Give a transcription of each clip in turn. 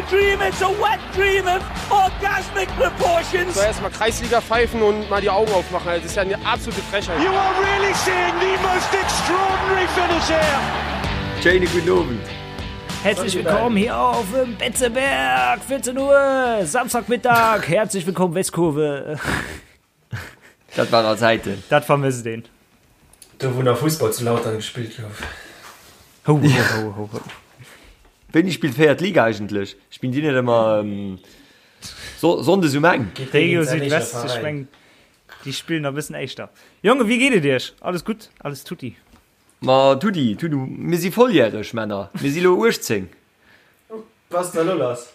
dream, it's a wet dream of orgasmic proportions. So erstmal Kreisliga pfeifen und mal die Augen aufmachen. Das ist ja eine absolute Frechheit. You are really seeing the most extraordinary finish here. Schéine gudden Owend. Herzlich willkommen hier auf dem Betzeberg, 14 Uhr, Samstagmittag. Herzlich willkommen, Westkurve. Dat waren all Zäiten. Dat vermësst een. Do wou nach Fussball zu Lautern gespillt gouf. Ho, ho, ho, ho, ho. Wéini spillt d'véiert Liga eigentlech? Spillen déi net ëmmer Sonndes um eng? Regio Südwest, ech meng déi spillen nach e bëssen éischter. Jongen, wéi geet et iech? Alles gutt? Alles tutti? Ma tutti, tutti. Mir si volljäreg, Männer. Mir si lo 18. Was da lo lass?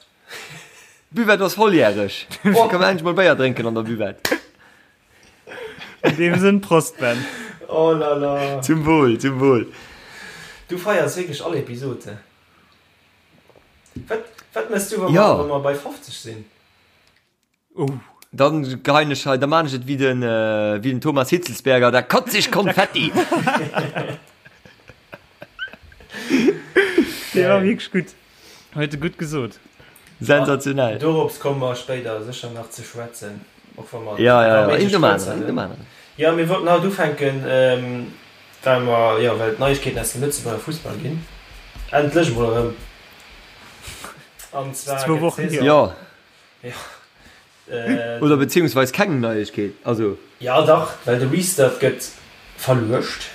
Buvette ass volljäreg. Oh, kann man endlech mol Béier drénken an der Buvette. In dem Sënn, Prost Ben. Oh la la. Zum Wohl, zum Wohl. Du feiers wierklech all Episode. Wat, wat mëss du, wa mer, Ja. wa mer bei 50 sinn? Oh. Dann geheien ech hei, da maan ech et wéi den, wéi den Thomas Hitzlsperger, da kotz ich Konfetti! Dee war wierklech gutt. Huet e gutt gesot. Sensationell. Dorops komme mer spéider sécher nach ze schwätzen, och wa mer Ja, ja, ja, méi een nom kuerz aneren, een nom aneren. Jo, mir wollten haut ufänken, well mer, jo, well et Neiegkeeten aus dem Lëtzebuerger Fussball ginn. Endlech emol erëm. An zwar Zwou gëtt Wochen d'Saison. hier. Jo. Jo. Oder beziehungsweis keng Neiegkeet, also. Jo dach, well de Restart gëtt verluecht.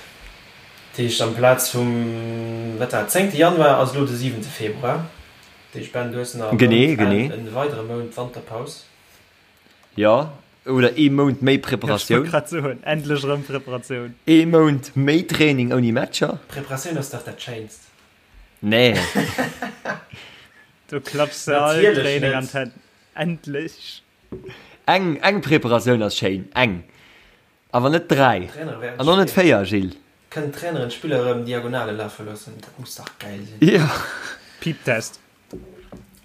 Dat heescht amplaz vum, wat war et, zéngte Januar ass elo de siwente Februar. Dat heescht Ben, du hues nach e Genee, Mount, genee. e weidere Mount Wanterpaus. Jo, oder ee Mount méi Ech wollt Preparatioun. grad soen, endlech erëm Preparatioun. Ee Mount méi Training ouni Matcher. Preparatioun ass dach dat Schéinst. Nee. Do klapps de all Natierlech Training an net. d'Hänn. Endlech! Eng, eng Preparatioun ass schéin, eng. Awer net 3. D'Trainere während An och net Spill. 4, Gilles. Kënnen d'Traineren d'Spiller erëm Diagonale lafe loossen? Dat muss dach gäil sinn. Jo. Piep-Test.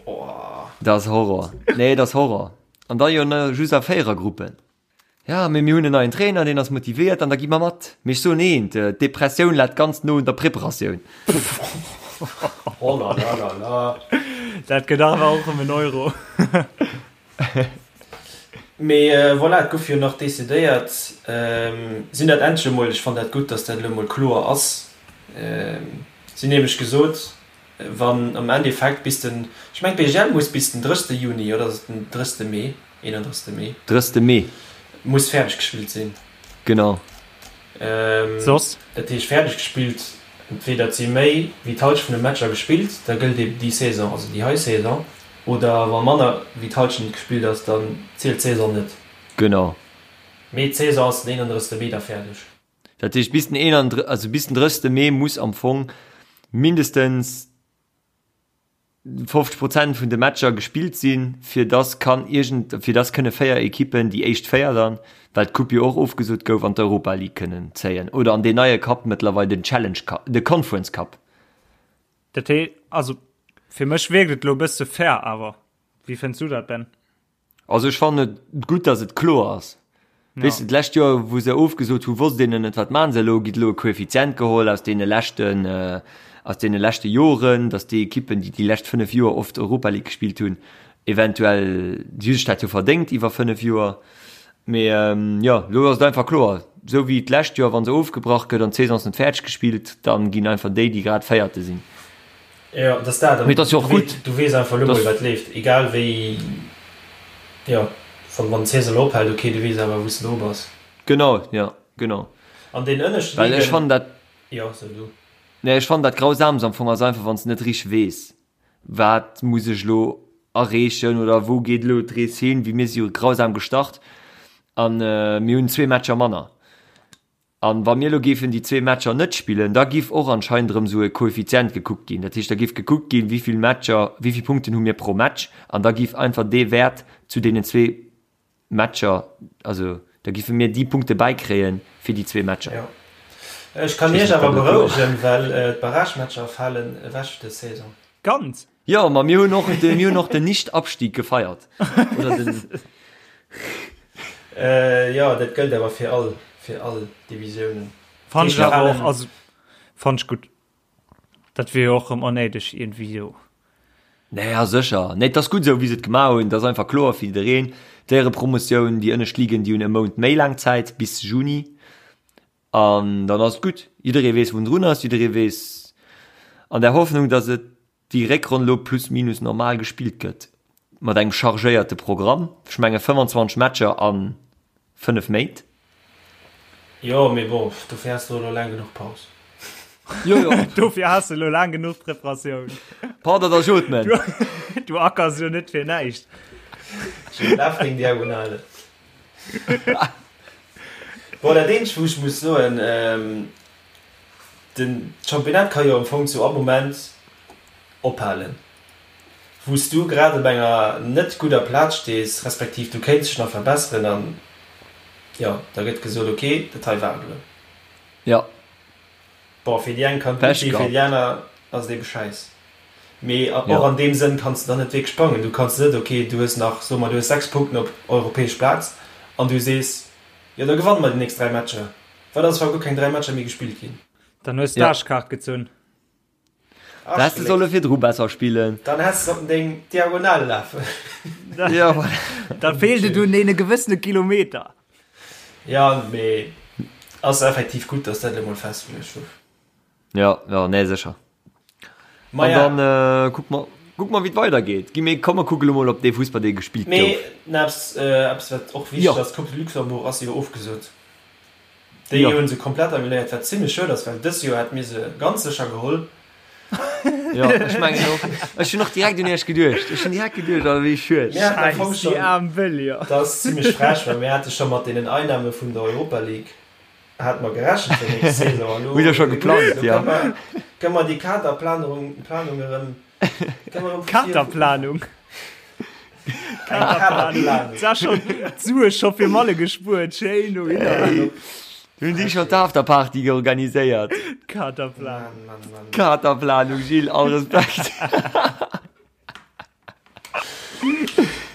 Oh. Dat ass Horror. Nee, dat ass Horror. An da jo just a Véierergruppen. Ja, mee mir hunn en neien Trainer, deen ass motivéiert an da gi mer mat. Mee ech soen eent, d'Depressioun läit ganz no un der Preparatioun. Oh la la la la. Dat gëtt awer och ëm en Euro. Mee voilà, et gouf jo nach decidéiert, sinn dat endlech emol, ech fannen dat gutt, datt dat elo emol kloer ass, si hunn nämlech gesot, wann am Endeffekt bis den, ech mengen d'BGL muss bis den 30. Juni, oder ass et den 30. Mee? 31. Mee. 30. Mee. Muss fäerdeg gespillt sinn. Genau. Soss? Dat heescht fäerdeg gespillt, entweder et si méi wéi d'Halschent vun de Matcher gespillt, da gëllt eben déi Saison, also déi hei Saison, oder wa manner wéi d'Halschent gespillt ass, dann zielt d'Saison net. Genau. Mee d'Saison ass den 31. Mee da fäerdeg. Dat heescht bis den 31, also bis den 30. Mee muss am Fong mindestens 50 Prozent vun de Matcher gespillt sinn, fir dass kann iergend, fir dass kënne 4 Ekippen, déi éischt 4 dann, well d'Coupe jo och ofgesot gouf, an d'Europa League kënnen zéien oder an deen neie Cup mëttlerweil, den Challenge Cup, de Conference Cup. Dat hee, also fir mech wierkt et elo e bësse fair awer. Wéi fënns du dat, Ben? Also ech fannen et gutt, dass et kloer ass. Ja. Weess de, d'lescht Joer, wou se ofgesot hu, wosst een net, wat maachen se elo? Gitt elo e Koeffizient geholl aus deene leschten, aus deene leschte Joren, dass déi Ekippen, déi déi lescht 5 Joer oft Europa League gespillt hunn, eventuell, déi hu sech dat jo verdéngt iwwer 5 Joer. Mee jo, elo ass et einfach kloer, esou wéi d'lescht Joer, wa se ofgebrach gëtt an d'Saison ass net fäerdeg gespillt, da ginn einfach déi, déi grad Véierte sinn. Jo, et ass dat. Mee et ass jo och gutt. Du weess einfach elo mol, wat leeft. Egal wéi, jo, wann, wann d'Saison elo ophält, ok, du weess awer, wou s de dru bass. Genau, jo, genau. An den ënneschte Well ech Ligen. fannen dat. Jo, so du. Nee, ech fannen dat Grausamst am Fong ass einfach, wann s de net richteg weess, wat muss ech elo erreechen oder wou geet elo d'Rees hin. Wéi mir si jo grausam gestart an mir hunn zwee Matcher manner. An wa mir elo géifen déi zwee Matcher net spillen, da giff och anscheinend erëm esou e Koeffizient gekuckt ginn. Dat heescht, da giff gekuckt ginn, wéi vill Matcher, wéi vill Punkten hu mir pro Match an da giff einfach dee Wäert zu deenen zwee Matcher, also da giffe mir déi Punkte bäikréie fir déi zwee Matcher. Jo. Ech kann Iech awer berouegen, well d'Barragematcher falen ewech dës Saison. Ganz? Jo, ma mir hunn och de, mir hunn och den Nicht-Abstieg gefeiert. Oder den. Jo, dat gëllt awer fir all, fir all Divisiounen. Fand ech awer och, also fand ech gutt. Dat wier jo och erëm onnéideg iergendwéi jo. Naja, sécher. Nee, et ass gutt esou, wéi se et gemaach hunn. Et ass einfach kloer fir jiddereen. D'Éierepromotioun, déi ënnescht Ligen, déi hunn e Mount méi laang Zäit, bis Juni. An dann ass et gutt. Jidderee weess, wou en drun ass. Jidderee weess, an der Hoffnung, datt et déi Réckronn elo plus minus normal gespillt gëtt, mat engem chargéierte Programm. Ech menge 25 Matcher a 5 Méint. Jo, mee bon, dofir has de elo laang genuch Paus. Jo, jo. Dofir has de elo laang genuch Preparatioun. Pardon, da jot men. Du ackers jo net fir näischt. Schön laf deng Diagonale. Bon, dat eenzegt, wou ech muss soen, den Championnat ka jo am Fong zu all Moment ophalen. Wou s du grad op enger net gudder Plaz stees, respektiv du kéints dech nach verbesseren an jo, da gëtt gesot, ok, dat hei war et elo. Jo. Bon, fir déi eng kann et gutt sinn, fir déi aner ass et ebe schäiss. Mee och an deem Sënn kanns de dann net wierklech bangen. Du kanns net, ok, du hues nach, soe mer, du hues 6 Punkten op europäesch Plaz an du sees, jo da gewanne mer déi nächst 3 Matcher. Wat ass, wa guer keng 3 Matcher méi gespillt ginn? Dann hues d'Aarschkaart gezunn. Da häss de solle virdru besser spillen. Dann häss de sollten deng Diagonale lafen. Ja, voilà. Da feelt et un deene gewëssene Kilometer. Ja, mee ass effektiv gutt, dass dat elo mol festgeluecht gouf. Ja, ja, nee, sécher. Ma An ja. dann äh, kuck mer, kuck mer, wéi et weidergeet. Gi mir, komm mer kucke lo mol op dee Fussball, dee gespillt Mee gouf. na, eppes, äh, eppes wat och wichteg Jo. ass, d'Coupe de Luxembourg ass jo ofgesot. Déi Jo. hunn se komplett annuléiert, wat zimlech schued ass, well dës Joer hätte mir se ganz sécher geholl. Jo, ech mengen och. Ech hunn och direkt un iech geduecht. Ech hunn direkt geduecht, oh wéi schued. Mir haten am Fong Scheiss, déi schonn, aarm Wëllier. dat ass zimlech frech, well mir hate scho mat deenen Einnahme vun der Europa League hate mer gerechent fir nächst Saison. An elo, Hutt der scho geplangt, elo jo. kënne mer, kënne mer déi Kaderplanung, Planung erëm, kënne mer erëm vu vir Katerplanung. Eng Kaderplanung. Sa schon d'Sue scho fir Malle gespuert, schéin dohinner. Hunn déi scho d'Afterparty organiséiert? Katerplanung. Mann, Mann, Mann. Katerplanung, Gilles, all Respekt.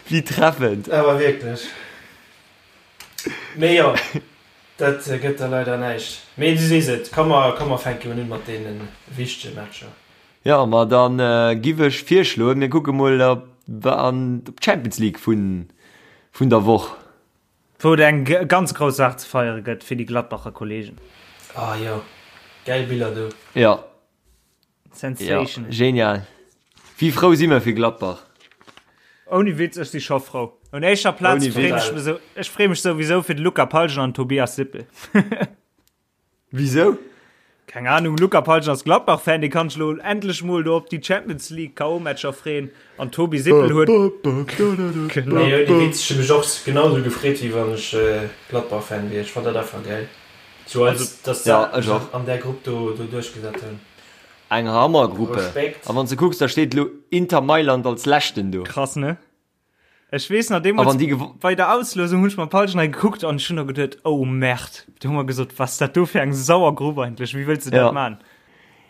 Wéi treffend. Awer wierklech. Mee jo, dat gëtt da leider näischt. Mee du sees et, komm mer, komm mer fänke un mat deene wichtege Matcher. Jo, ma dann giff ech virschloen, mir kucke mol op an d'Champions League vun vun der Woch. Wou et eng ganz grouss Saach ze feiere gëtt fir déi Gladbacher Kollegen. Ah jo, gäil Biller do. Jo, Sensation. Jo, genial. Wéi frou si mir fir Gladbach. Ouni Witz, ech si scho frou. Un éischer Plaz freen ech mech sou, ech free mech souwisou fir de Luca Palgen an Tobias Sippel. Wisou? Keng Ahnung, Luca Palgen ass Gladbach-Fan, dee kann sech lo endlech mol do op déi Champions League KO-Matcher freen an Tobi Sippel huet. Genau. Nee, ouni Witz, ech hu mech och genau sou gefreet, wéi wann ech Gladbach-Fan wier. Ech fannt dat einfach gäil. Sou als, dass se Ja, ech och. an där Grupp do do duerchgesat hunn. Eng Hammergruppe. Respekt. A wann s de kucks, da steet elo Inter Mailand als leschten do. Krass, ne? Ech weess nach A deemools wann déi gewo. bei der Auslosung hunn ech mam Palsch nei gekuckt an ech hunn da geduet, oh Merde, do hu mer gesot, was dat do fir eng sauer Grupp eigentlech, wéi wëlls de dat Ja. man?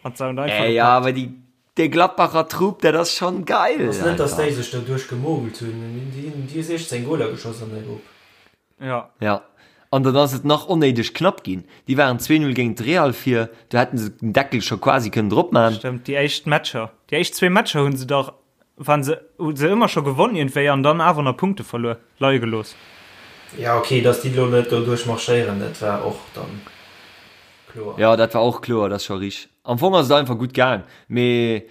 An se hunn einfach Ey, ja, gepackt. awer déi, dee Gladbacher Trupp, dat ass schonn geil, Ass net, dass einfach. déi sech do duerchgemogelt hunn. Déi hunn déi hu 16 Goler geschoss an der Grupp. Ja. Ja, an dann ass et nach onnéideg knapp ginn. Déi waren 2-0 géint Real vir, do hätten se den Deckel scho quasi kënnen drop man. Stëmmt, déi éischt Matcher, déi éischt zwee Matcher hunn se dach, waren se, hu se ëmmer scho gewonn iergendwéi an dann awer nach Punkte verluer, leie gelooss. Ja ok, dass déi lo net do duerch marschéieren, dat war och dann kloer. Ja, dat war och kloer, dat ass scho rich. Am Fong ass et einfach gutt gaang, mee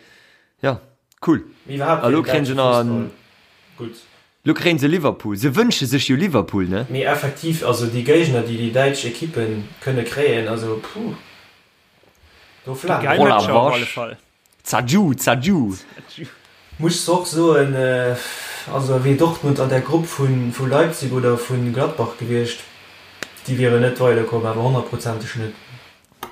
ja, cool. Mee iwwerhaapt A fir lo den kréien se däitsche nach Fussball en. gutt. Lo kréien se Liverpool. Se wënsche sech jo Liverpool, ne? Mee effektiv, also déi Géigner, déi déi däitsch Ekippe kënne kréien, also puh, do Geil flamen. Oh la Matcher op alle vache. Fall. Zadju, zadju. Muss och soen, also wier Dortmund an der Grupp vu Leipzig oder vu Gladbach gewiescht, déi wieren net weiderkomm, awer honnertprozenteg net.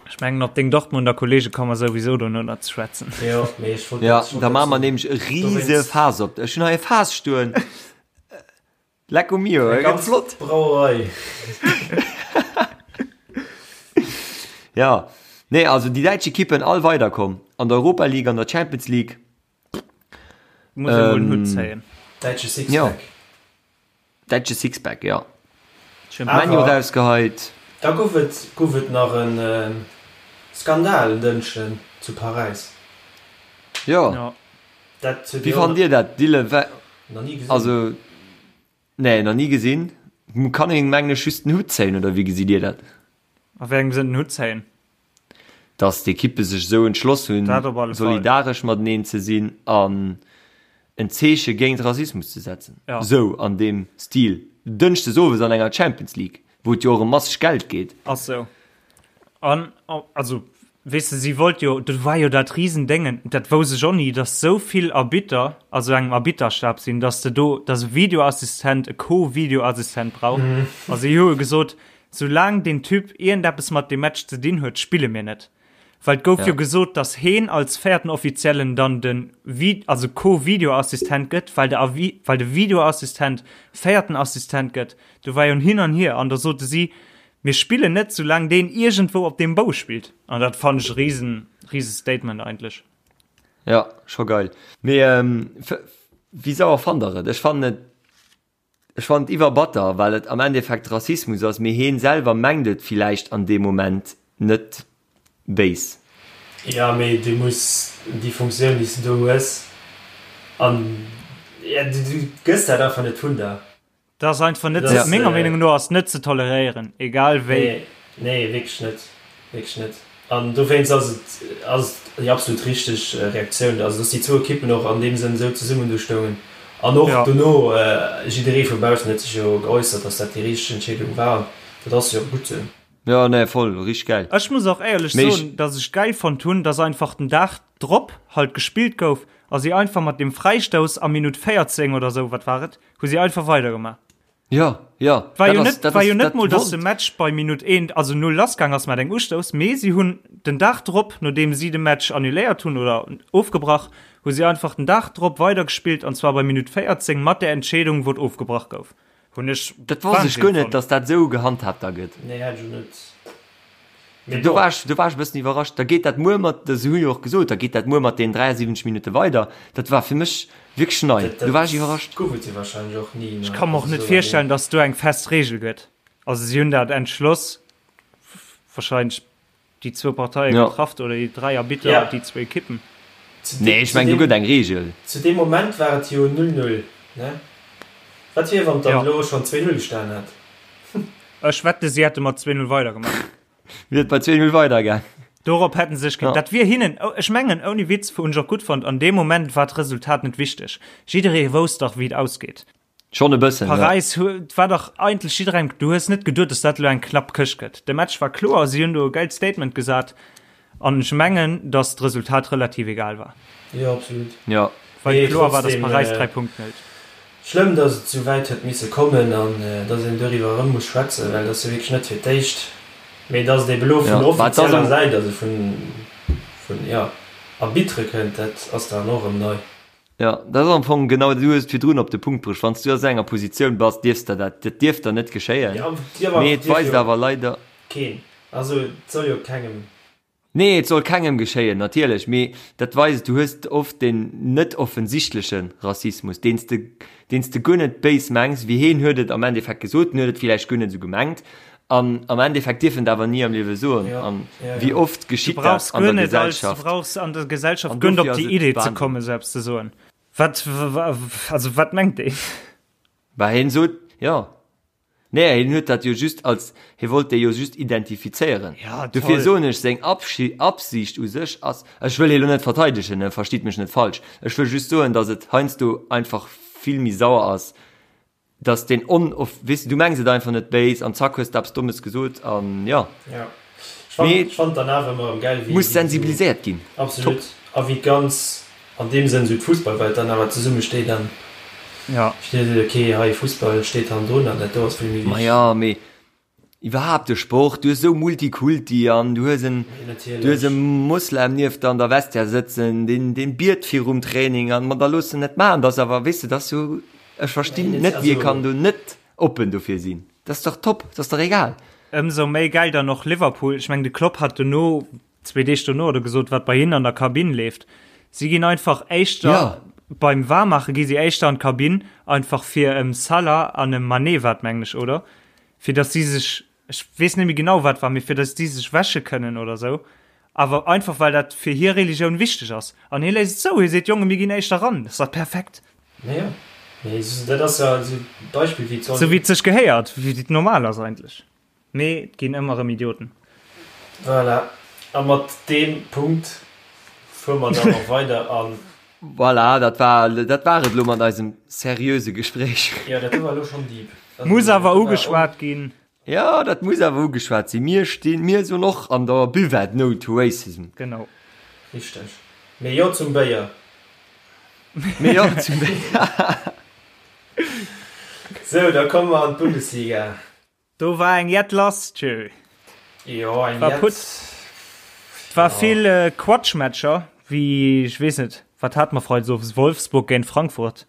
Ech mengen op deng Dortmunder Kollege komme mer souwisou dono nach ze schwätzen. Jo, mee ech wollt Ja, dat, ech wollt da dat maache mer soen. nämlech e rise Dowéinst. Faass op. Ech hunn hei e Faass stoen. Lecco mio, Eng gëtt ganz flott. Brauerei. Ja, nee, also déi däitsch Ekippen all weiderkomm an der Europa League, an der Champions League. Muss ee mol den Hutt zéien. Däitsche Ja. Sixpack. Däitsche Sixpack, ja. Awer Menu rausgeheit. Da gouf et gouf et nach e Skandal en Dënschden zu Paräis. Jo. Ja. Dat huet Wéi jo fannt Dir dat, Dylan? Wa nach ni gesinn. also nee, nach ni gesinn. Kann een mengen ech just den Hutt zéien oder wéi gesitt Dir dat? A wéi engem Sënn den Hutt zéien? Dass d'Ekippe sech esou entschloss hunn, Dat op alle Fall. solidaresch mateneen ze sinn an en Zeeche géint Rassismus ze setzen. Ja. Esou an deem Stil. Dënschdes owes an enger Champions League, wou et jo och ëm masseg Geld geet. Ass sou. An, also, weess de, si wollt jo, do war jo dat Risendéngen, dat wousst ech och ni, dass sou vill Arbitter a sou engem Arbitterstab sinn, dass de do, dass e Videoassistent e Co-Videoassistent brauch. A si hu jo gesot, soulaang deen Typ iergendeppes mat deem Match ze dinn huet, spille mir net. Well et gouf jo Ja. gesot, dass heen als véierten Offiziellen dann de Vi-, also Co-Videoassistent gëtt, well de Avi-, well de Videoassistent véierten Assistent gëtt. Do war jo en Hin an Hier an da sote si, Mir spillen net, soulaang deen iergendwou op deem Bou spillt. An dat fannen ech e riesen, riese Statement eigentlech. Ja, scho geil. Mee wéi sauer fannt der et? Ech fannen et, ech fannen et iwwerbatter, well et am Endeffekt Rassismus ass, mee heen selwer mengt et villäicht an deem Moment net béis. Jo, mee du muss déi Funktioun, déi s du do hues, an du gëss dat einfach net vun der. Dat ass einfach net ze, menger Meenung no ass net ze toleréieren, egal wéi. Nee, nee, wierklech net, wierklech net. An dowéinst ass et, ass et déi absolut richteg Reaktioun, also dass déi zwou Ekippen och an deem Sënn esou zesummen do stoungen. An och dono, jidderee vu baussen huet sech jo geäussert, dass dat déi richteg Entscheedung war. An dat ass jo och gutt esou. Jo, nee, voll, richteg gäil. Ech muss och éierlech soen, dass ech gäil fonnt hunn, dass einfach den Dag drop halt gespillt gouf a si einfach mat deem Fräistouss a Minutt 14 oder esou, wat war et, Hu si einfach weidergemaach. Jo, jo. War jo net, war jo net mol, dass de Match bei Minutt 1, also 0 lassgaang ass mat engem Ustouss, mee si hunn den Dag drop, nodeem si de Match annuléiert hunn oder ofgebrach, hu si einfach den Dag drop weidergespillt an zwar bei Minutt 14 mat där Entscheedung, wou et ofgebrach gouf. Hunn ech Dat wosst ech Wahnsinn guer net, fonnt. dass dat esou gehandhaabt da gëtt. Nee, hätt ech och net. Mee Do bon. war ech, do war ech e bëssen iwwerrascht. Da geet dat muer mat, se hu jo och gesot, da geet dat muer mat deenen 73 Minutte weider. Dat war fir mech wierklech nei. Dat, Do war dat ech iwwerrascht. gouf et jo wahrscheinlech och ni, Ech ne? ka mer och Also net esou virstellen, laang. dass do eng fest Reegel gëtt. Also si hunn dat entschloss, wahrscheinlech déi zwou Parteie Ja. getrafft oder déi dräi Arbitter, Ja. déi zwou Ekippen. Zu Nee, deem, ech zu mengen, do deem, gëtt eng Reegel. zu deem Moment war et jo 0-0, ne? Wat wier, wann et dann Ja. elo schonn 2-0 gestanen hätt? Ech wette si hätte mat 2-0 weidergemaach. Wier et bei 2-0 weidergaang. Dorop hätten se sech, Ja. dat wier hinnen, ech mengen ouni Witz, hunn ech och gutt fonnt, an deem Moment war d'Resultat net wichteg. Jidderee wousst dach wéi et ausgeet. Schonn e bëssen, ja. Paräis huet, war dach eigentlech jidderengem, du hues net geduet, dass dat elo eng knapp Këscht gëtt. De Match war kloer, si hunn do e gäilt Statement gesat an ech mengen, dass d'Resultat relativ egal war. Jo, absolut. Ja. Well Mee kloer war, dass trotzdem, Paräis 3 Punkten hëlt. Schlëmm, dass et esou wäit huet misse kommen an dass een doriwwer erëm muss schwätzen, well et ass jo wierklech net fir d'éischt, mee dass et ebe elo vun Ja, mä et ass offizieller am. Säit, also vun, vun, jo, Arbitere kënnt, dat ass dann och erëm nei. Jo, dat ass am Fong genau, du hues et virdrun op de Punkt bruecht, wann s du a esou enger Positioun bass, dierfs der dat, dat dierf der net geschéien, Jo, dierf mee awer, et dierf weist jo awer leider. keen, also et soll jo kengem. Nee, et soll kengem geschéien, natierlech, mee dat weist, du hues oft deen net offensichtleche Rassismus, deen s de, deen s de guer net béis mengs, wéi heen huet et am Endeffekt gesot, en huet et villäicht guer net esou gemengt, an am Endeffekt dierf en et awer ni am Liewe soen. Ja, An ja, wéi ja. oft Du geschitt dat brauchs an guer der net als, du Gesellschaft? brauchs an der Gesellschaft An guer net dofir op ass déi et Idee ze Wahnsinn. kommen, esou eppes ze soen. Wat, also wat mengt deen? Bah, heen sot, jo. Nee, hien huet dat jo just als, hie wollt déi jo just identifizéieren. Ja, Dofir toll. soen ech, seng Absicht u sech ass, ech wëll hie lo net verteidegen, ne, verstitt mech net falsch, ech wëll just soen, datt et heiansdo einfach vill méi sauer ass, datt deen on-, weess de, du mengs et einfach net béis an zack hues de eppes Dommes gesot an jo. Ja. Ech fand, Mee ech fand dann awer ëmmer erëm gäil, wéi, muss wéi esou, sensibiliséiert ginn. Top. absolut, a wéi d'ganz An deem Sënn esou d'Fussballwelt dann awer zesumme steet an Ja. steet seet, ok, hei Fussball steet hannendrun an dat do ass vill méi wichteg. Maja, mee iwwerhaapt de Sport, du hues esou Multikulti an du hues en, Mee du hues e natierlech. Moslem nieft der an der Vestiaire sëtzen, deen, deen biet virum Training an, ma da looss en net maachen, dat ass awer, weess de, dat ass jo, ech verstinn Mee net, wie also. kann do net oppen dofir sinn, dat ass dach top, dat ass dach egal. Ëmsou méi gäil dann och Liverpool. Ech mengen, de Klopp hat dono zwee Deeg dono oder gesot, wat bei hinnen an der Kabinn leeft. Si ginn einfach éischter Ja. beim Waarmaache gi si éischter an d'Kabinn, einfach fir em Salah an em Mané war et mengen ech, oder? Fir datt si sech, ech weess net méi genau wat war, mee fir datt si sech wäsche kënnen oder sou. Awer einfach well dat fir hir Religioun wichteg ass. An hie léisst et zou, hie seet, Jonge mir ginn éischter ran, dat ass dach perfekt. Naja, mee dat ass jo esou e Beispill wéi et soll Sou wéi et sech gehéiert, wéi et normal ass eigentlech. Mee et ginn ëmmer erëm Idioten. Voilà, a mat deem Punkt fuere mer dann och weider an. Voilà, dat war, dat war et elo mat eisem seriöse Gespréich. Jo, dat do war elo schonn deep. Muss awer ugeschwat ginn. Jo, dat muss awer ugeschwat sinn. Mir stinn, mir soen och an der Buvette No to Racism. Genau. Richteg. Mee jo zum Béier. Mee jo zum Béier. Sou, da komme mer an d'Bundesliga. Do war eng Jett lass, tjö. Jo, eng War Jett. Putz. Et war vill Quatschmatcher, wéi, ech weess net, wat hate mer freides owes, Wolfsburg géint Frankfurt.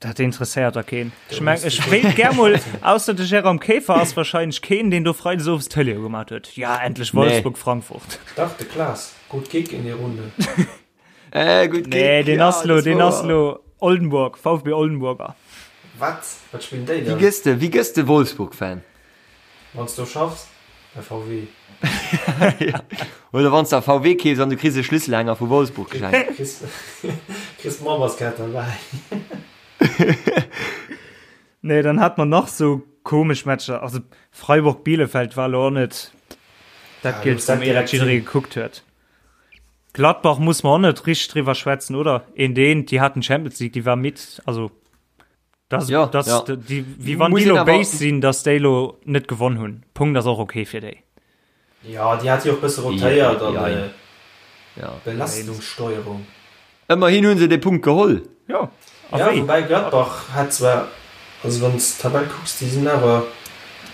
Dat interesséiert da keen. Ech meng, ech wéilt gär mol, ausser de Jérôme Kaefer ass wahrscheinlech keen, deen do freides owes d'Tëlee ugemaat huet. Ja, endlech Wolfsburg, Frankfurt. Dach, de Klaas. Gutt Kick in die Runde. Äh, gutt Kick. Nee, deen ja, ass lo, dat deen wouer. ass lo Oldenburg, VfB Oldenburger. Wat? Wat spillen déi Wéi dann? gëss de, wéi gëss de Wolfsburg-Fan? Wann s du schaffs bei VW. Oder wann s de a VW keefs an du kriss e Schlüsselhänger vu Wolfsburg geschenkt. Kriss, kriss d'Memberskaart derbäi. Nee, dann hat mer nach sou komesch Matcher. Also Freiburg-Bielefeld war lo och net dat Ja, Gillst, dat wou mir dat direkt jidderee sinn. gekuckt huet. Gladbach muss mer och net richteg driwwer schwätzen, oder? Eent eent, déi haten d'Champions League, déi war midd. Also Das, Ja, das, ja. Die, wie wann Muss déi een lo awer- béis sinn, dass déi lo net gewonn hunn. Punkt ass och okay fir déi. Ja, déi hat jo och bësse rotéiert an Ja, äh, Ja. Belastungssteuerung. Ëmmerhin hunn se de Punkt geholl. Ja, a Ja, wéi? woubäi Gladbach hat zwar, also wann s d'Tabell kucks, déi sinn awer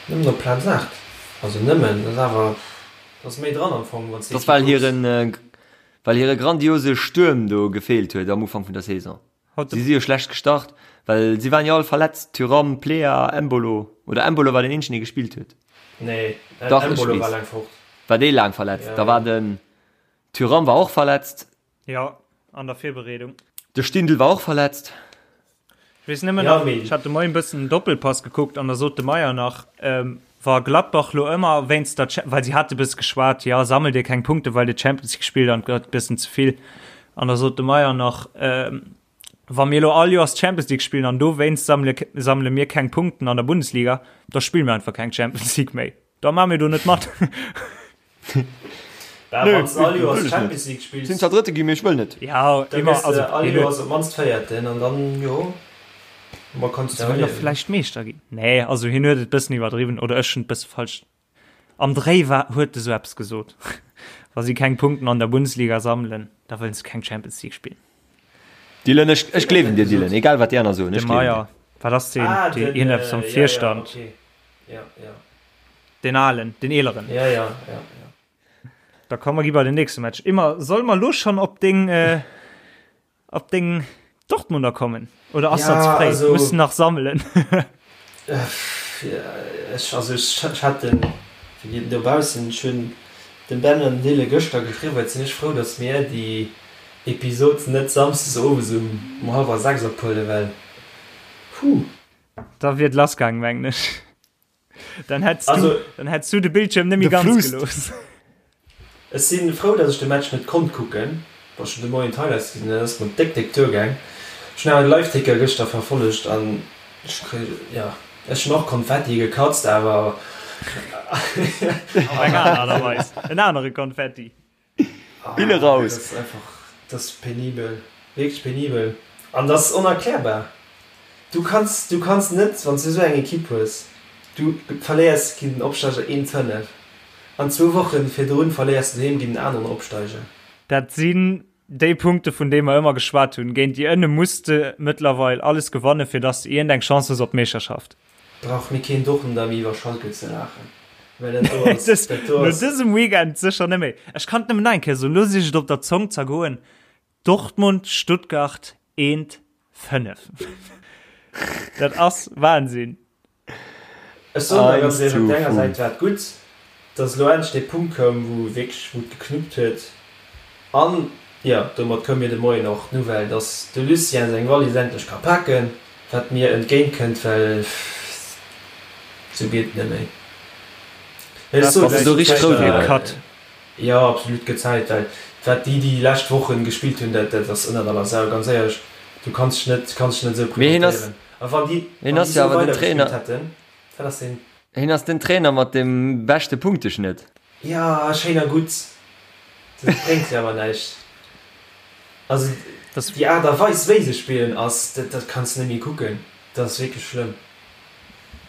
nëmmen op Plaz 8. Also nëmmen, dat ass awer, dat ass méi dran am Fong, wann s Dat ass well hiren, well hire grandiose Stuerm do gefeelt huet am Ufank vun der Saison. Si si jo schlecht gestart, well si waren jo all verletzt, Thuram, Plea, Embolo, oder Embolo war den eenzegen dee gespillt huet. Nee, Dach, ech Embolo war weess. laang fort. War dee laang verletzt? Ja, Da war ja. den Thuram war och verletzt. Ja, an der Virbereedung. De Stindl war och verletzt. Ech weess nëmmen Ja, nach, mee- ech hat de Moien e bëssen den Doppelpass gekuckt an da sot de Meyer nach, ähm, wa Gladbach lo ëmmer wéinst der, Cha- well si hate bësse geschwat, ja, sammelt dir keng Punkte, well dir Champions League spillt an et gëtt bëssen ze vill. An da sot de Meyer nach, ähm, wa mir lo all Joers Champions League spillen an dowéinst sammele, sammele mir keng Punkten an der Bundesliga, da spille mir einfach keng Champions League méi. Da maache mir do net mat. Bah, Nö, wann s all Joers wëll ech Champions net. League spills, Sinn zwar Drëtte ginn, mee ech wëll net. Ja, da immer, gëss de also, all hien huet Joers op d'mannst Véierten an dann, jo, ma kanns Se du wëll nach erliewen. vläicht Meeschter ginn. Nee, also hien huet et bëssen iwwerdriwwen oder ech hunn et bësse falsch. Am Dréi war, huet e sou eppes gesot. Wa si keng Punkten an der Bundesliga sammelen, da wëllen se keng Champions League spillen. Dylan, ech, ech gleewen dir, Dylan, egal wat déi aner soen, De ech gleewen dir. Meyer, wat ass deen, Ah, deen den, iergendeppes am äh, ja, ja, Virstand? okay. Ja, ja. Den alen, den eeleren. Ja, ja, ja, ja. Da komm mer gi bei den nächste Match. Immer, soll mer lo schon op deng, äh, op deng Dortmunder kommen? Oder ass Ja, dat ze fréi? also- Muss nach sammelen. Ja, ech, also ech, ech hat den, fir déi dobaussen, ech hunn dem Ben an dem Dylan gëschter geschriwwen, et sinn ech frou, datt mir déi Episod net samsdes owes um, um hallwer 6 ophuelen, well, huh. Da wier et lassgaang, mengen ech. Dann hättst Also, du, dann hättst du de Bildschirm net méi De ganz Frust. gelooss. Ech si frou, datt ech de Match net konnt kucken, well ech hunn de Moien d'Highlights gesinn, dat ass mer déck, déck duergaang. Ech hunn awer de Liveticker gëschter verfollegt an ech kri, jo, ech hunn och Konfetti gekatzt, awer Op eng aner Art a Weis. En anere Konfetti. Bille raus. Dat ass einfach, dat ass penibel, wierklech penibel an dat ass onerklärbar. Du kanns, du kanns net, wann s du esou eng Ekipp hues, du verléiers géint den Opsteiger 1, 5 an zwou Woche virdrun verléiers du doheem géint en aneren Opsteiger. Dat sinn déi Punkte vun deene mer ëmmer geschwat hunn. Géint déi ënne muss de mëttlerweil alles gewanne fir dass de iergend eng Chance hues op d'Meeschterschaft. Brauch mir keen Dortmunder méi iwwer Schalke ze laachen, well dat do ass, dat do No ass. dësem Weekend sécher net méi. Ech kann et nëmmen nach eng Kéier soen, lo si ech et op der Zong zergoen, Dortmund, Stuttgart 1, 5. Dat ass Wahnsinn. Ech soen der ganz Eins éierlech, op zu der enger Säit 5. war et gutt, dass elo endlech dee Punkt koum, wou wierklech, wou et geknuppt huet. An, jo, domat koum mir de Moien och d'Nouvelle, dass de Lucien seng Wallis endlech ka paken, wat mir entgéint kënnt, well sou geet et net méi. Ech soen Bass de do lech, richteg frou driwwer? Cut. Jo, absolut gëtt Zäit, well wat déi déi lescht Wochen gespillt hunn, dat dat ass ënnert aller Sau, ganz éierlech. Du kanns dech net, kanns dech net esou Mee hien ass, presentéieren. A wann déi, hien wann déi ass jo esou awer den weider gespillt Trainer, hätten, dat ass den. hien ass den Trainer mat dem beschte Punkteschnëtt. Jo, schéin a gutt, dat bréngt jo awer näischt. Also déi Aart a Weis wéi se spillen ass, dat dat kanns de net méi kucken, dat ass wierklech schlëmm.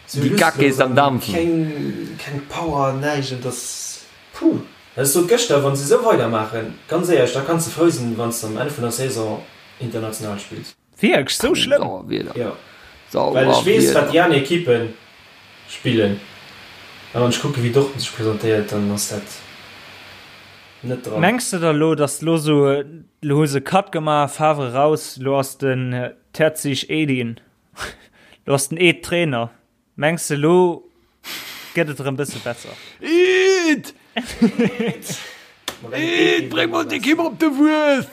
Sou Déi Kacke lustlos ist am an Dampfen. keng keng Power, näischt, et ass puh. Ech sot gëschter, wann se esou weidermaachen, ganz éierlech, da kanns de frou sinn, wann s de am Enn vun der Saison international spills. Wierklech, sou schlëmm? Sauer Wieder. Jo, well ech Sauer weess, wat Wieder. déi aner Ekippe spillen, a wann ech kucke wéi Dortmund sech presentéiert, dann ass dat net dran. Mengs de da lo, dass lo sou, lo hu se Cut gemaach, Favre raus, lo ass den Terzic Edin, lo ass den Ed Trainer, Mengs de lo gëtt et erëm bësse besser? Eed! Eed, bréng mol d'Ekipp op de Wues!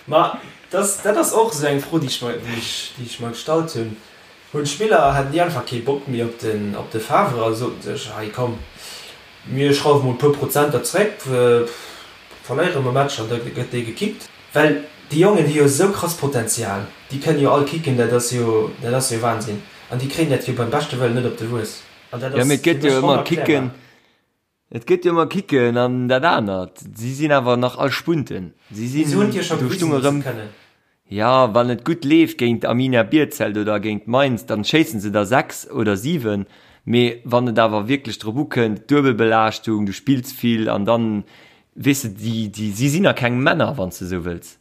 Ma dat dat ass och esou eng Fro, déi ech mer, déi ech, déi ech mer gestallt hunn. Hunn d'Spiller, haten déi einfach kee Bock méi op den, op de Favre a soten sech, hei komm, mir schrauwe mol e puer Prozenter zréck, verléiere mer Matcher an da gëtt dee gekickt. Well déi Jongen hu jo esou krass Potenzial, déi kënnen jo all kicken, dat ass jo, dat ass jo Wahnsinn. An déi kréien dat jo beim beschte Wëllen net op de Wues. An dat Jo, ass mee et fir gëtt jo mech ëmmer Kicken, onerklärbar. et gëtt jo ëmmer Kicken an dat anert. Si sinn awer nach all Spunten. Si Mee se hunn sinn, et jo scho do gewisen, stung datt se erëm, et kënnen. jo, wann et gutt leeft géint Arminia Bielefeld oder géint Mainz, dann schéissen se der 6 oder 7. Mee wann et awer wierklech drop ukënnt, Duebelbelaaschtung, du spills vill an dann Weess de, déi, déi, si sinn nach keng Männer, wann s de esou wëlls.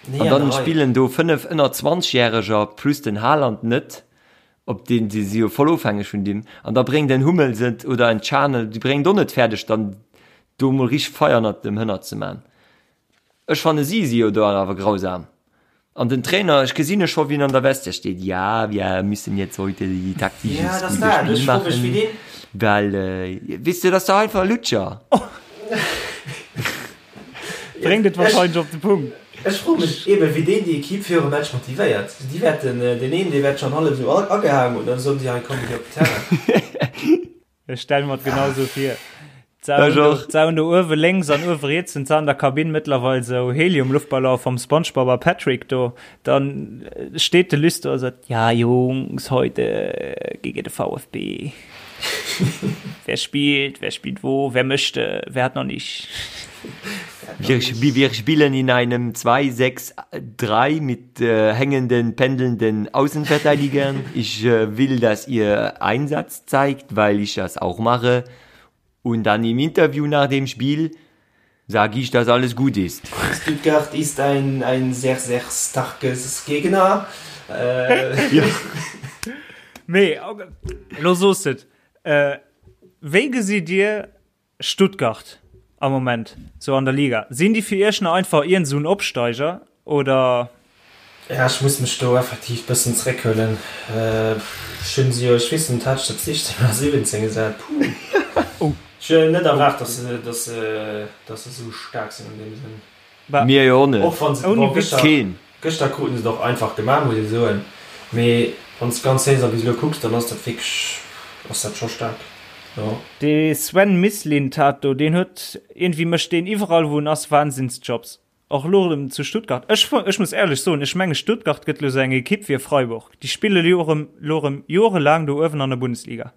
Nee, An an der dann Rei. spillen do 5 ënner 20 Järeger plus den Haaland net, op deen, si si jo voll ofhängeg vun deem. An da bréngt en Hummels et oder en Can, déi bréngen et och net fäerdeg, dann do emol richteg Feier ënnert dem Hënner ze man. Ech fanne si si jo do awer grausam. An den Trainer, ech gesinn e scho wien an der Vestiaire steet, ja wir müssen jetzt heute die taktisches Ja, das gute dat. Spiel Ech fro mech, wéi machen, deen. well weess de, dat ass dach einfach e Lutscher. Bréngt et wahrscheinlech op de Punkt. Ech fro mech eben, wéi deen déi Equipe virum Match motivéiert. Déi wäerten, deen een, dee wäert schonn hallef esou agehaang hunn, dann soen si, hei komm, mir gi op den Terrain. Ech stelle mer et genau sou vir. Ech och. D'Sauen do uewe lénks an uewe riets hunn an der Kabinn mëttlerweil sou Helium-Luftballon vom Spongebob a Patrick do. Dann steet de Luss do a sot, Ja Jungs, heute gegen de VfB. Wer spielt, wer spielt wo, wer möchte, wer hat noch nicht. Wir, wir spielen in einem 2-6-3 mit äh, hängenden, pendelnden Außenverteidigern. Ich äh, will, dass ihr Einsatz zeigt, weil ich das auch mache. Und dann im Interview nach dem Spiel sage ich, dass alles gut ist. Stuttgart ist ein, ein sehr, sehr starkes Gegner. Äh, ja. Mee, lo soos de et. Äh, wéi gesitt Dir Stuttgart am Moment sou an der Liga, sinn déi fir iech nach einfach iergend sou en Opsteiger oder? Ja, ech muss mech do effektiv bëssen zréckhuelen. Ech hunn se jo, ech weess net, hat ech dat 16 oder 17 gesat? Puh. Ech hunn net erwaart, dass se, dass se, dass se sou staark sinn an deem Sënn. Mir jo och net. Och wann se, Ouni bon, Witz. gëschter, Keen. gëschter kruten se et och einfach gemaach, muss ee soen. Mee wann s de d'ganz Saison bis elo kucks, dann ass dat wierklech, ass dat scho staark, jo. Dee Sven Mislintat do, deen huet, iergendwéi mécht deen iwwerall wou en ass Wahnsinnsjobs. Och elo erëm zu Stuttgart. Ech, ech muss éierlech soen, ech menge Stuttgart gëtt elo sou eng Ekipp wéi Freiburg. Déi spille elo erëm, elo erëm jorelaang do uewen an der Bundesliga.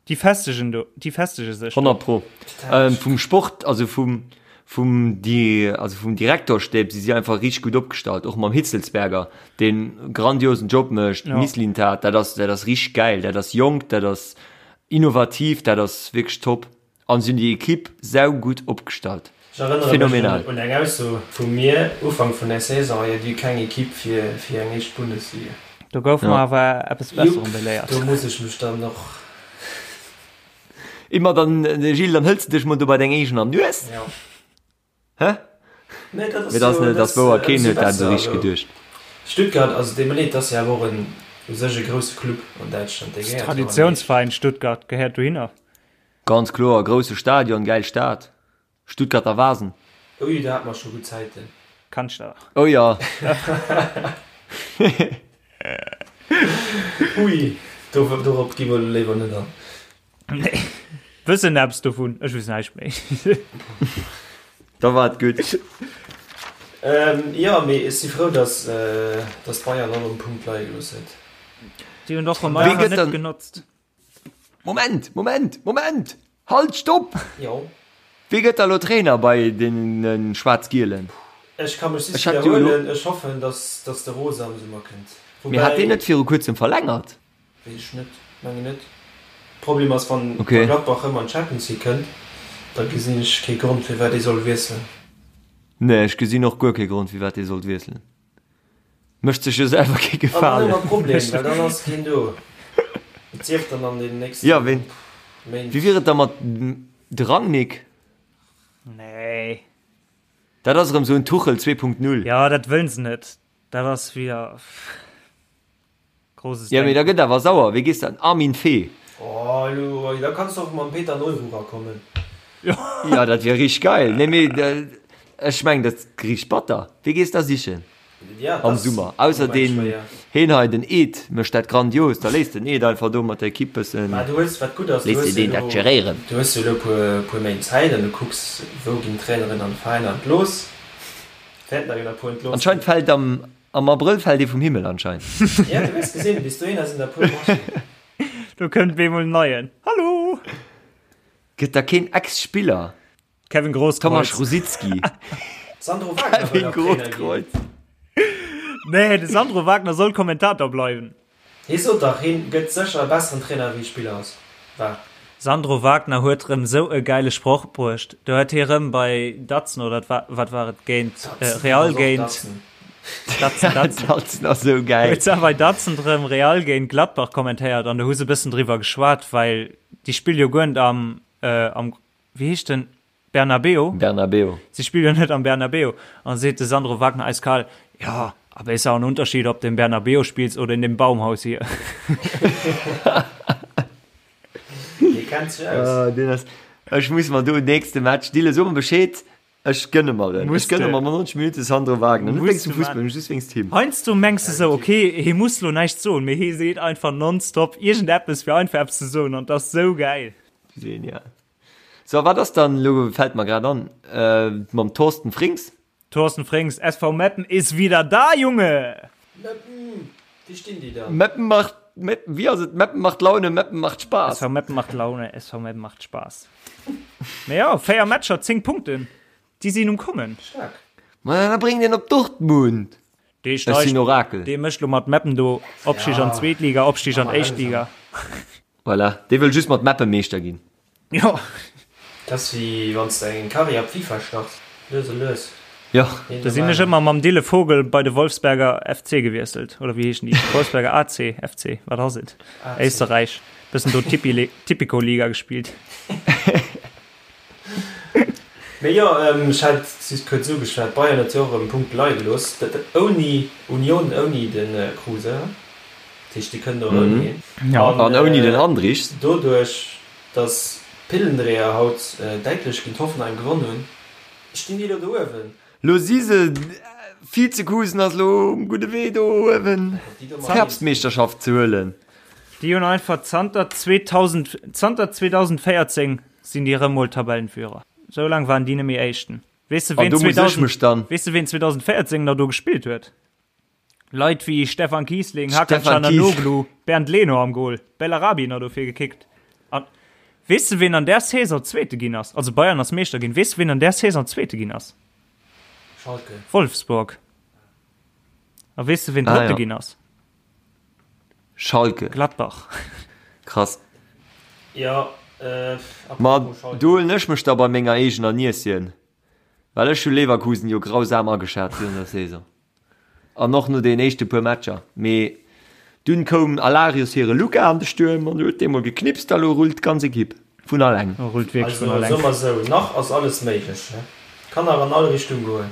Déi festegen do, déi festege sech do. 100 pro. Vum Sport, also vum, vum Di, also vum Direktorstäb si si einfach richteg gutt opgestallt, och mam Hitzelsberger, deen grandiosen Job mécht, Ja. Mislintat, dat ass, dat ass richteg gäil, dat ass jonk, dat ass innovativ, dat ass wierklech top. An si hunn déi Equipe saugutt opgestallt. Ech erënnere mech Phänomenal. un eng Ausso vu mir Ufank vun der Saison, Jo, déi hu keng Equipe fir, fir eng éischt Bundesliga. Do goufe Ja. mer awer eppes Jupp, Besserem beléiert. do muss ech mech dann och. Immer dann, Gilles, dann hëls de dech mol do bei deng eegener Nues. Ja. Hä? Nee, dat ass Mee dat ass jo, net, dat ass wouer, keen ëmsou huet dat esou besser. richteg Also geduecht. Stuttgart, also deet mer leed, dat ass jo awer och en u sech e grousse Club an Däitschland, dee gehéiert jo an déi éischt. Traditiounsveräin Stuttgart gehéiert dohinner. Ganz kloer, grousse Stadion, gäil Stad, Stuttgarter Wasen. Ui, do hate mer scho gutt Zäiten. Kanns de. Oh jo. Ui, dorop gi mer elo léiwer net an. Nee. Wëssen eppes dovun, ech weess näischt méi. Da war et gutt. Jo, mee ech si frou, datt Bayern och en Punkt leie gelooss huet. Déi hunn och rëm einfach net genotzt. Moment, Moment, Moment! Halt, stopp! Jo. Wie gëtt da lo Trainer bei deene Schwaarz-Gielen? Ech ka mech just widderhuelen, ech hoffen, datt de Rose am Summer kënnt. Mee hat deen net viru kuerzem verlängert? Weess ech net, mengen net. Problem ass wann Gladbach rëm an d'Champions League kënnt, da gesinn ech kee Grond firwat ee soll wiesselen. Nee, ech gesinn och guer kee Grond firwat ee sollt wiesselen. Mécht sech jo selwer kee Gefalen. An dann hu mer e Problem, well dann ass keen do. Et sief dann an den nächsten Jo, ween, Méint. wéi wier et da mat de Rangnick? Nee. Dat ass erëm esou en Tuchel 2.0. Jo, dat wëllen se net. Dat ass wieder. Grosses Ja, mee da gëtt awer sauer. Wéi gees de an Armin Veh? Oh, elo, da kanns de och mam Peter Neururer kommen. Ja, dat wier richteg geil. Nee, mee ech mengen, dat ass richteg batter. Wee gees da sichen am Summer? Ausser deen heen hei, den Ed, mécht dat grandios. Da léisst den Ed einfach do mat der Ekipp bëssen, Mä du hues, wat gutt ass, du léisst hues de jo deen dat elo, geréieren. du hues jo elo e puer Méint Zäit an du kucks, wou ginn d'Traineren an de Veräiner entlooss. Wäerten der jo nach e puer entlooss ginn. Anscheinend fält am Am Abrëll fält ee vum Himmel anscheinend. Ja, du hues gesinn, bis dohinner sinn der puer Matchen. Do kënnt bemol en neien. Hallo! Gëtt da keen Ex-Spiller? Kevin Grosskreutz. Tomasz Rosicky. Sandro Wagner wëll Kevin nach Trainer ginn. Grosskreutz. Nee, de Sandro Wagner soll Kommentator bleiwen. Hie sot dach, hien gëtt sécher e besseren Trainer wéi Spiller ass, war. Sandro Wagner huet rëm sou e gäile Sproch bruecht. Do huet hie rëm bei Datsen oder wat war et géint Real géint Datsen, Datsen. Datsen ass sou gäil. Huet se bei Datsen rëm Real géint Gladbach kommentéiert an do hu se bëssen driwwer geschwat, well déi spille jo guer net am, am, wéi heescht den? Bernabeu? Bernabeu. Sie spielen jo net am Bernabeu. An seet de Sandro Wagner eiskal, Ja, aber ist auch ein Unterschied, ob du im Bernabeu spielst oder in dem Baumhaus hier. Dee kennt sech aus. Ah, deen ass, ech muss mer do nächste Match, Dille, so mer Bescheed, ech gënne mer en. Ech gënne mer 90 Minutte Sandro Wagner. Net wéinst dem Fussball, just wéinst him. Heiansdo mengs de sou, okay, hie muss lo näischt soen, mee hie seet einfach nonstop iergendeppes, fir einfach eppes ze soen, an 't ass sou gäil. Genial. So, wat ass dann elo, fällt mer grad an, mam Thorsten Frings? Thorsten Frings, SV Meppen ist wieder da, Junge! Meppen! Wéi stinn déi dann? Meppen macht, Meppen, wéi ass et? Meppen macht Laune, Meppen macht Spaß. SV Meppen macht Laune, SV Meppen macht Spaß. Mee jo, 4 Matcher, 10 Punkten, déi sinn um Kommen. Staark. Ma da bréngt een op Dortmund. Dee Ech sinn steigt, Orakel. dee mécht lo mat Meppen do Opstig an d'zweet Liga, Opstig an d'éischt Liga. Voilà, dee wëll just mat Meppen Meeschter ginn. Jo. Dat ass wéi wann s de eng Karriär op FIFA starts, lues a lues. Jo. Do sinn ech ëmmer mam Dille Vogel bei de Wolfsberger FC gewiesselt, oder wéi heeschen déi? Wolfsberger AC, FC, wat ass et? Éisterräich. Bëssen do Tipico-Liga gespillt. Mee jo, ech hat just kuerz ugeschwat, Bayern huet jo och erëm Punkte leie gelooss, dat ouni Union, ouni de Kruse, dat heescht déi kënnen och ouni hien. An ouni den Andrich. Doduerch, datt d'Pillendreher haut däitlech géint Hoffenheim gewonn hunn, stinn déi elo do uewen. Lo si se, Vizekusen ass elo um gudde Wee do uewen d'Herbstmeeschterschaft ze huelen. Déi hunn einfach zanter 2000, zanter 2014 Sinn déi rëm mol Tabellenführer? Sou laang waren déi net méi Éischten. Weess de An ween do muss ech 2000, mech dann. weess de ween 2014 nach do gespillt huet? Leit wéi Stefan Kießling, Hakan Stefan Kies. Çalhanoğlu, Bernd Leno am Goal, Bellarabi nach dofir gekickt. An weess de ween an där Saison Zweete ginn ass? Also Bayern ass Meeschter ginn. Weess de ween an där Saison Zweete ginn ass? Schalke. Wolfsburg. A weess de ween Ah Drëtte ja. ginn ass? Schalke. Gladbach. Krass. Jo, äh, Ma apropos Schalke. do huelen ech mech da bei menger eegener Nieschen, well ech hu Leverkusen jo grausam ageschat virun der Saison an och no den éischte puer Matcher. Mee dunn koum Alarius hire Luka an de Stuerm an huet dee mol geknipst a lo rullt d'ganz Ekipp vun alleng. Rullt wierklech Also, vun alleng. soe mer esou, nach ass alles méiglech, ne? Kann nach an all Richtung goen.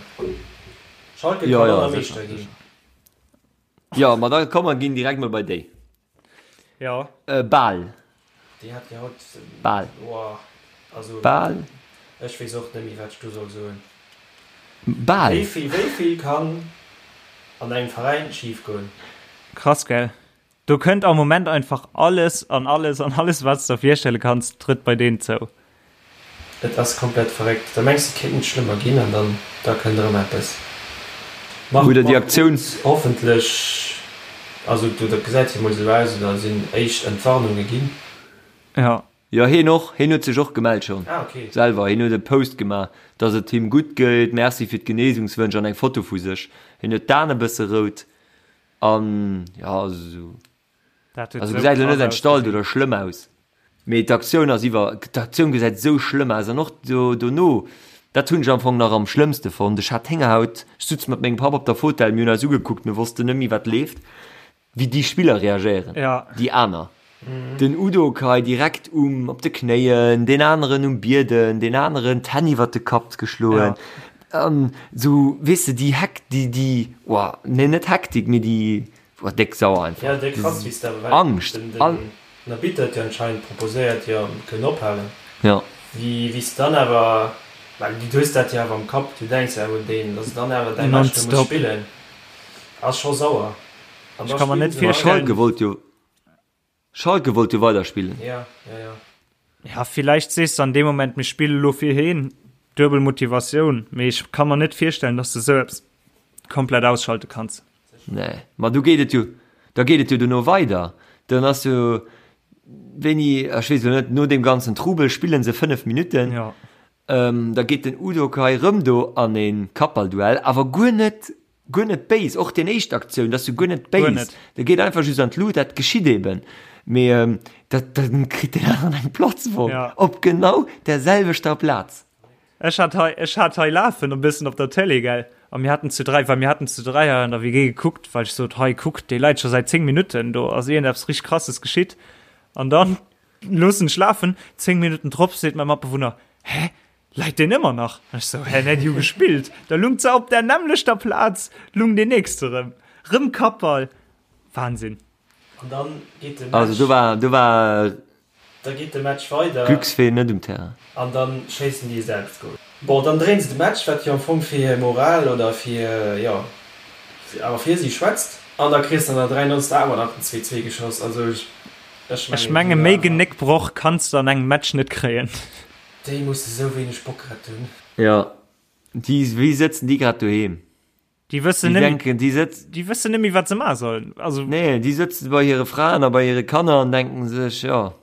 Schalke Jo, kann jo, och nach sécher, Meeschter ginn. sécher. Jo, ma da komm mer ginn direkt mol bei déi. Jo. Bal. Déi hat jo haut. Bal. Boah, also. Bal. Ech weess och net méi wat ech do soll soen. Bal. Wéi vill, wéi vill kann an engem Veräin schif goen? Krass, gell? Do kënnt am Moment einfach alles an alles an alles, wat s de der virstelle kanns, trëtt bei deenen zou. Et ass komplett verréckt. Da mengs de et kéint net schlëmmer ginn an dann da kënnt erëm eppes. Marc Oder déi Aktioun. Hoffentlech, also do dat gesäit jo mol esou aus, oder sinn éischt Entwarnunge ginn. Jo. Jo heen och, heen huet sech och gemellt schonn Ah ok. selwer, heen huet e Post gemaach dass et him gutt geet, Merci fir d'Genesungswënsch an eng Foto vu sech, heen huet d'Aen e bësse rout an jo also esou. Dat huet Also esou gesäit elo krass net entstallt ausgesinn. oder schlëmm aus, mee d'Aktioun ass iwwer, d'Aktioun gesäit esou schlëmm aus an och do dono, dat hunn ech am Fong nach am schlëmmste fonnt, ech hat Héngerhaut, ech sutz mat mengem Papp op der Fotell, mir hunn eis ugekuckt, mir wossten net méi wat leeft, wéi déi Spiller reagéieren, Ja. déi aner, den Udokai direkt um op de Knéien, deen aneren um Bieden, deen aneren d'Hänn iwwert de Kapp geschloen, Ja. an esou, weess de, déi Hek, déi, déi, oah, nee net Hektik, mee déi, War déck sauer einfach. Ja, déck krass wéi s de awer well Angscht den an. den Arbitter huet jo anscheinend proposéiert jo mir kënnen ophalen. Ja. Wéi wéi s dann awer well du hues dat jo awer am Kapp, du denks jo awer un deen, dass dann awer däi Match do muss Nonstop. spillen ass scho sauer an Ech da ka mer spillen net se weider. virstellen. Schalke wollt jo Schalke wollt jo weiderspillen. Ja, ja, ja. Ja, villäicht sees de an deem Moment, mir spille lo fir heen, duebel Motivatioun, mee ech ka mer net virstellen, dass de sou eppes komplett ausschalte kanns. Nee, ma du geet et jo, da geet et jo dono weider. Dann ass jo wéini, ech weess elo net, no deem ganzen Trubel spillen se 5 Minutten. Ja. Ähm, da geet den Udokai rëm do an e Kappballduell, awer guer net, guer net béis. Och deen éischt Aktioun, dat ass jo guer net Guer béis. net. De geet einfach just an d'Lut, dat geschitt eben. Mee ähm, dat, dann kritt deen aneren eng Platzwonn Ja. op genau der selwechter Plaz. Ech hat hei, ech hat hei lafen e bëssen op der Télé, gell, a mir haten zu 3, well mir haten zu 3 hei an der WG gekuckt, well ech sot, hei kuck, dee leit scho säit 10 Minutten, do ass iergendeppes richteg Krasses geschitt. An dann loossen ech lafen, 10 Minutten drop seet mäi Matbewunner, hä, läit deen ëmmer nach? An ech sou, hä, nee, déi hu gespillt. Da lung se op där nämmlechter Plaz, lung deen nächste rëm, rëm Kappball. Wahnsinn. An dann geet de Match. Also do war, do war Da geet de Match weider. Glücksfee net um Terrain. An dann schéissen déi e Selbstgol. Bon, dann dréinen se de Match, wat jo am Fong fir hir Moral oder fir, jo, awer fir si schwätzt. An da kriss de an der 93. awer nach den 2, 2 geschoss. Also ech Ech mengen, menge déi méi war. Genéckbroch kanns de an engem Match net kréien. Déi musse sou wéineg Bock grad hunn. Jo, déi, wéi sëtzen déi grad doheem? Déi wëssen Déi net, denken, déi sëtzen. déi wëssen net méi, wat se maache sollen. Also. Nee, déi sëtzen bei hire Fraen a bei hire Kanner an denken sech, jo,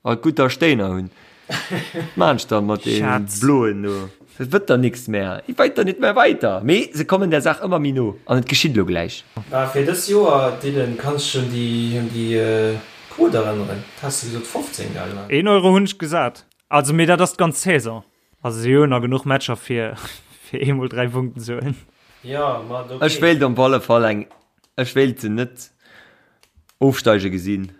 alt gutt, datt ech Déiner hunn. Wat maan ech dann mat deenen Schatz. Bloen do? Et wëtt der nix mehr. Et weit der nit mehr weiter. Mee se kommen der Saach ëmmer méi no an et geschitt elo gläich. Bah, fir dës Joer, Dylan, kanns dech un déi, un déi Quote erënneren? Wat has de gesot, 15, gell? Een Euro hunn ech gesat. Also, mee dat ass d'ganz Saison. Also si hunn nach genuch Matcher fir fir eemol 3 Punkten ze huelen. Jo, ma ok. Ech wéilt op alle Fall eng, ech wéilt se net ofsteige gesinn,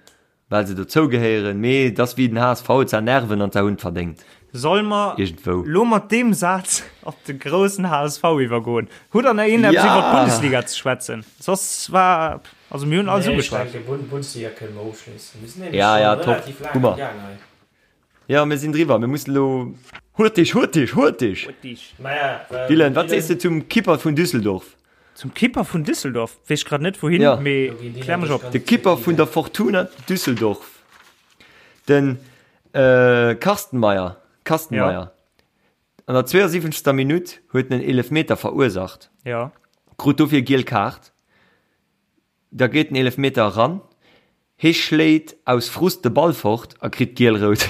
well se dozou gehéieren, mee et ass wéi den HSV, et sa Nerven an se hunn et verdéngt. Soll mer Iergendwou. lo mat deem Saz op de groussen HSV iwwergoen? Hutt der nach een eppes Ja! iwwer d'Bundesliga ze schwätzen? Soss war, also mir hunn alles Nee, ech ugeschwat. denke Bundesliga kënne mer ofschléissen. Mir sinn nämlech Ja, scho ja, top. relativ laang Hu mer. am Gaang hei. Ja, mir sinn driwwer. Mir mussen elo. Hurtig, hurtig, hurtig! Maja, Dylan, wat sees de zum Kipper vun Düsseldorf? Zum Kipper vun Düsseldorf? Weess grad net wouhin, Ja. mee klär mech op. De Kipper vun der Fortuna Düsseldorf, den Carsten Meyer, Kastenmeier, Ja. an der 72. Minutt huet en en Eelefmeter verursacht, Ja. krut dofir giel Kaart. Da geet den Eelefmeter eran, hee schléit aus Frust de Ball fort a kritt giel-rout.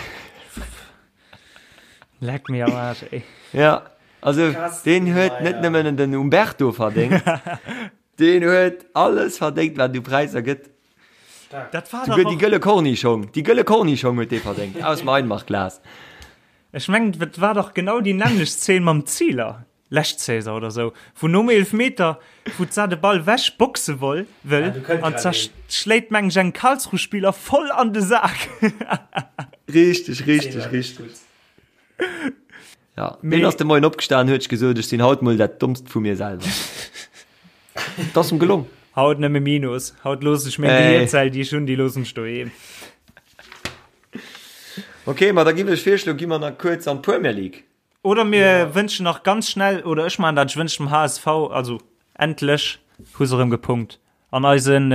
Leck mir am Aarsch, ey. Ja, also deen huet net nëmmen den Umberto verdéngt, deen huet alles verdéngt, wat et u Präisser gëtt. Dat war Souguer dach déi och. gëlle Kornischong, déi gëlle Kornischong huet dee verdéngt, aus dem Einmachglas. Ech mengen, et war dach genau déi nämmlecht Zeen mam Zieler. Lescht Saison oder sou, wou nom Eelefmeter, wou d'Sa de Ball wech boxe woll, wëll, an d'Sa schléit meng ech engem Karlsruhe-Spiller voll an de Sak. Richteg, richteg, richteg. Ja, deen ass de Moien opgestan, huet sech gesot, ech sinn haut mol dat Dommst vu mir selwer. Et ass em gelong. Haut nëmme Minus, haut loossen ech meng Gehierzell, déi ech hunn, déi loossen ech doheem. Ok, ma da giff ech virschloen, gi mer nach kuerz an d'Premier League. Oder mir wënschen nach ganz schnell, oder ech maachen dat, ech wënschen dem HSV, also endlech hu se erëm gepunkt. An eisen.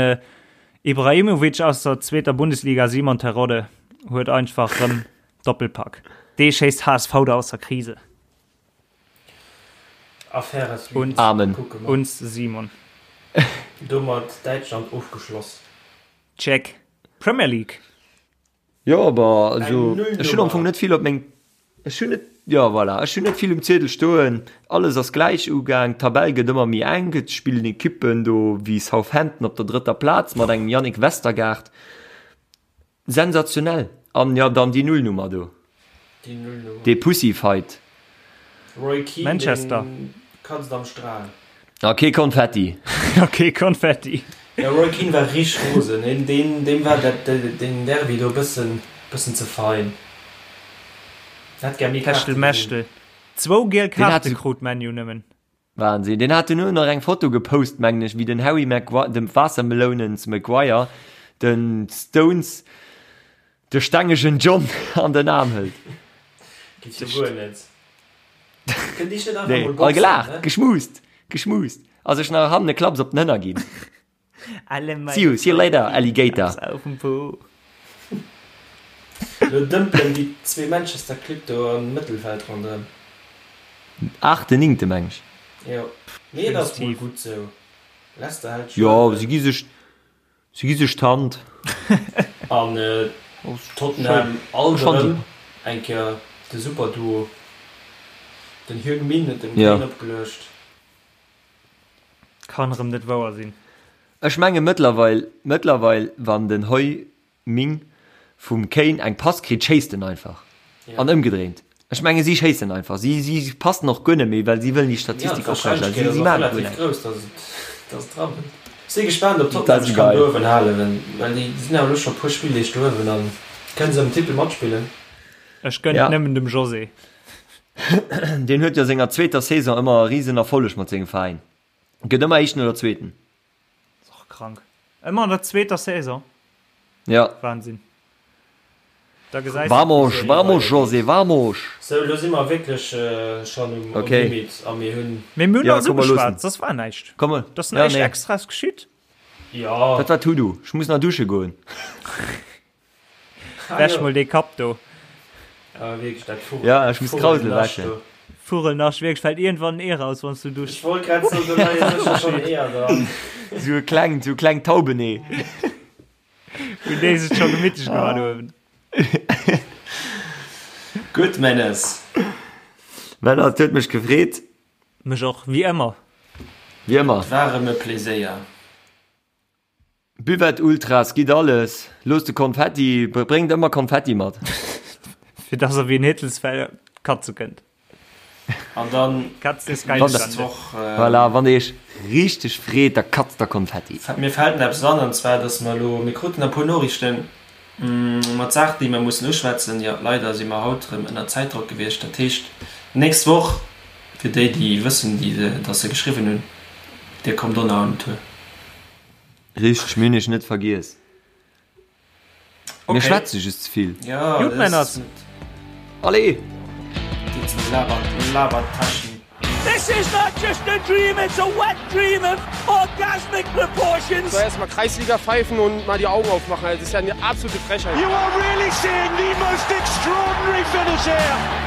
Ibrahimovic aus der zweeter Bundesliga, Simon Terodde huet einfach rëm Doppelpack. Dee schéisst HSV da aus der Krise. Affaire à suivre. Amen. Kucke mer. Uns Simon. Domat Däitschland ofgeschloss. Check. Premier League. Jo, aber also Eng Nullnummer. ech hunn am Fong net vill op meng ech hunn net jo voilà, ech hunn net vill um Ziedel stoen. Alles ass gläich ugaang, d'Tabell gëtt ëmmer méi enk, et spillen Ekippen do wéi Southampton op der drëtter Plaz mat engem Yannick Westergaard. Sensationell! An jo, dann déi Nullnummer do. Déi Nullnummer. Dee Pussyfight. Roy Keane, Manchester. deen katzt am Strahl. A kee Konfetti. A kee Konfetti. Jo, Roy Keane war richteg rosen. Deen, deen, deem war dat, deen Derby do e bëssen, bëssen ze fein. Hätt gär méi Kaarte gesinn. Techtelmechtel. Zwou giel Deen hat Kaarte sou. krut ManU nëmmen. Wahnsinn. Deen hat duerno nach eng Foto gepost, mengen ech, wéi den Harry Maguire, dem Waassermelounens Maguire, den Stones de stengegen John an den Aarm hëlt. Geet jo guer net. Kënnt Iech net einfach Nee, mol all boxen, gelaacht, ne? geschmust, geschmust a sech nach hannen e Klapps op den Hënner ginn. Alle meine See you, see you later, Alligator. Klaps auf dem Po. Lo dëmpelen déi zwee Manchester Clibb do am Mëttelfeld ronderëm. Aachte, néngte meng ech. Jo, mee et ass mol Tief. gutt sou. Leicester hält Jo, Schwäche. si gi sech, si gi sech d'Hand. An Tottenham alt Schonn erëm eng Kéier de Superduo. Den Heung-Min huet dem Ja. Kane opgeluecht. Kann erëm net wouer sinn. Ech menge mëttlerweil, mëttlerweil wann den Heu Ming vum Kane eng Pass kritt, schéisst en einfach. Ja. An ëmgedréint. Ech menge si schéissen einfach. Si, si passen och guer net méi, well si wëllen déi Ja, Statistik oprechterhalen. d'Warscheinlechkeet Si, ass si och maachen guer relativ näischt. grouss, dass et, dass et dran kënnt. Si gespaant, ob Dat Tottenham ass sech kann geil. do uewen halen, well déi sinn awer elo scho e puer Spilldeeg do uewen an kënne se ëm den Titel matspillen. Ech gënnt Ja. nëmmen dem José. Deen huet jo senger zweeter Saison ëmmer e risen Erfolleg mat sengem Veräin. Gëtt ëmmer Éischten oder Zweeten. Ass och krank. Ëmmer an der zweeter Saison. Ja. Wahnsinn. Da gesäis Vamos, vamos José, vamos! Sou, elo si mer wierklech schonn um Okay. Limit a mir hunn. Mee mir hunn Ja, alles komm, mer loossen. ugeschwat, soss war näischt. Komm, Et ass ja, näischt nee. Extraes geschitt. Jo. Dat war Tudu. Ech muss nach dusche goen. Wäsch mol dee Kapp do. Awer wierklech, dat Vugel. Ja, ech muss Krausel wäschen. Vugelnascht, wierklech, fält iergendwann en Ee raus, wann s du duschs. Ech wollt grad soen, do leie sécher schonn Eeër dran. Sou e klengt, sou e klengt Taubenee. Hunn déi sech scho gemittlech gemaach do uewen. Gutt, Menes. Männer, et huet mech gefreet. Mech och, wéi ëmmer. Wéi ëmmer. Et war erëm e Pleséier. Buvette Ultras, gitt alles, loosst de Konfetti, bréngt ëmmer Konfetti mat. Fir dass er wéi en Hittelsfell katze kënnt. An dann Katz ist geil. nächst Woch. Voilà, wann der iech richteg freet, da katzt der Konfetti. Mir fält eppes an, an zwar dass mer elo, mir kruten e puer Noriichten mat Saachen, déi mer mussen uschwätzen. Jo, leider si mer haut erëm ënner Zäitdrock gewiescht. Dat heescht, nächst Woch, fir déi, déi wëssen, déi dass se geschriwwen hunn, dir kommt och nach un den Tour. Richteg, mir hunn iech net vergiess. Mir schwätze just ze vill. Ja, Gutt, Männers. Allez! Geet zum Labertaschen. This is not just a dream, it's a wet dream of orgasmic proportions. So erstmal Kreisliga pfeifen und mal die Augen aufmachen. Das ist ja eine absolute Frechheit. You are really seeing the most extraordinary finish here.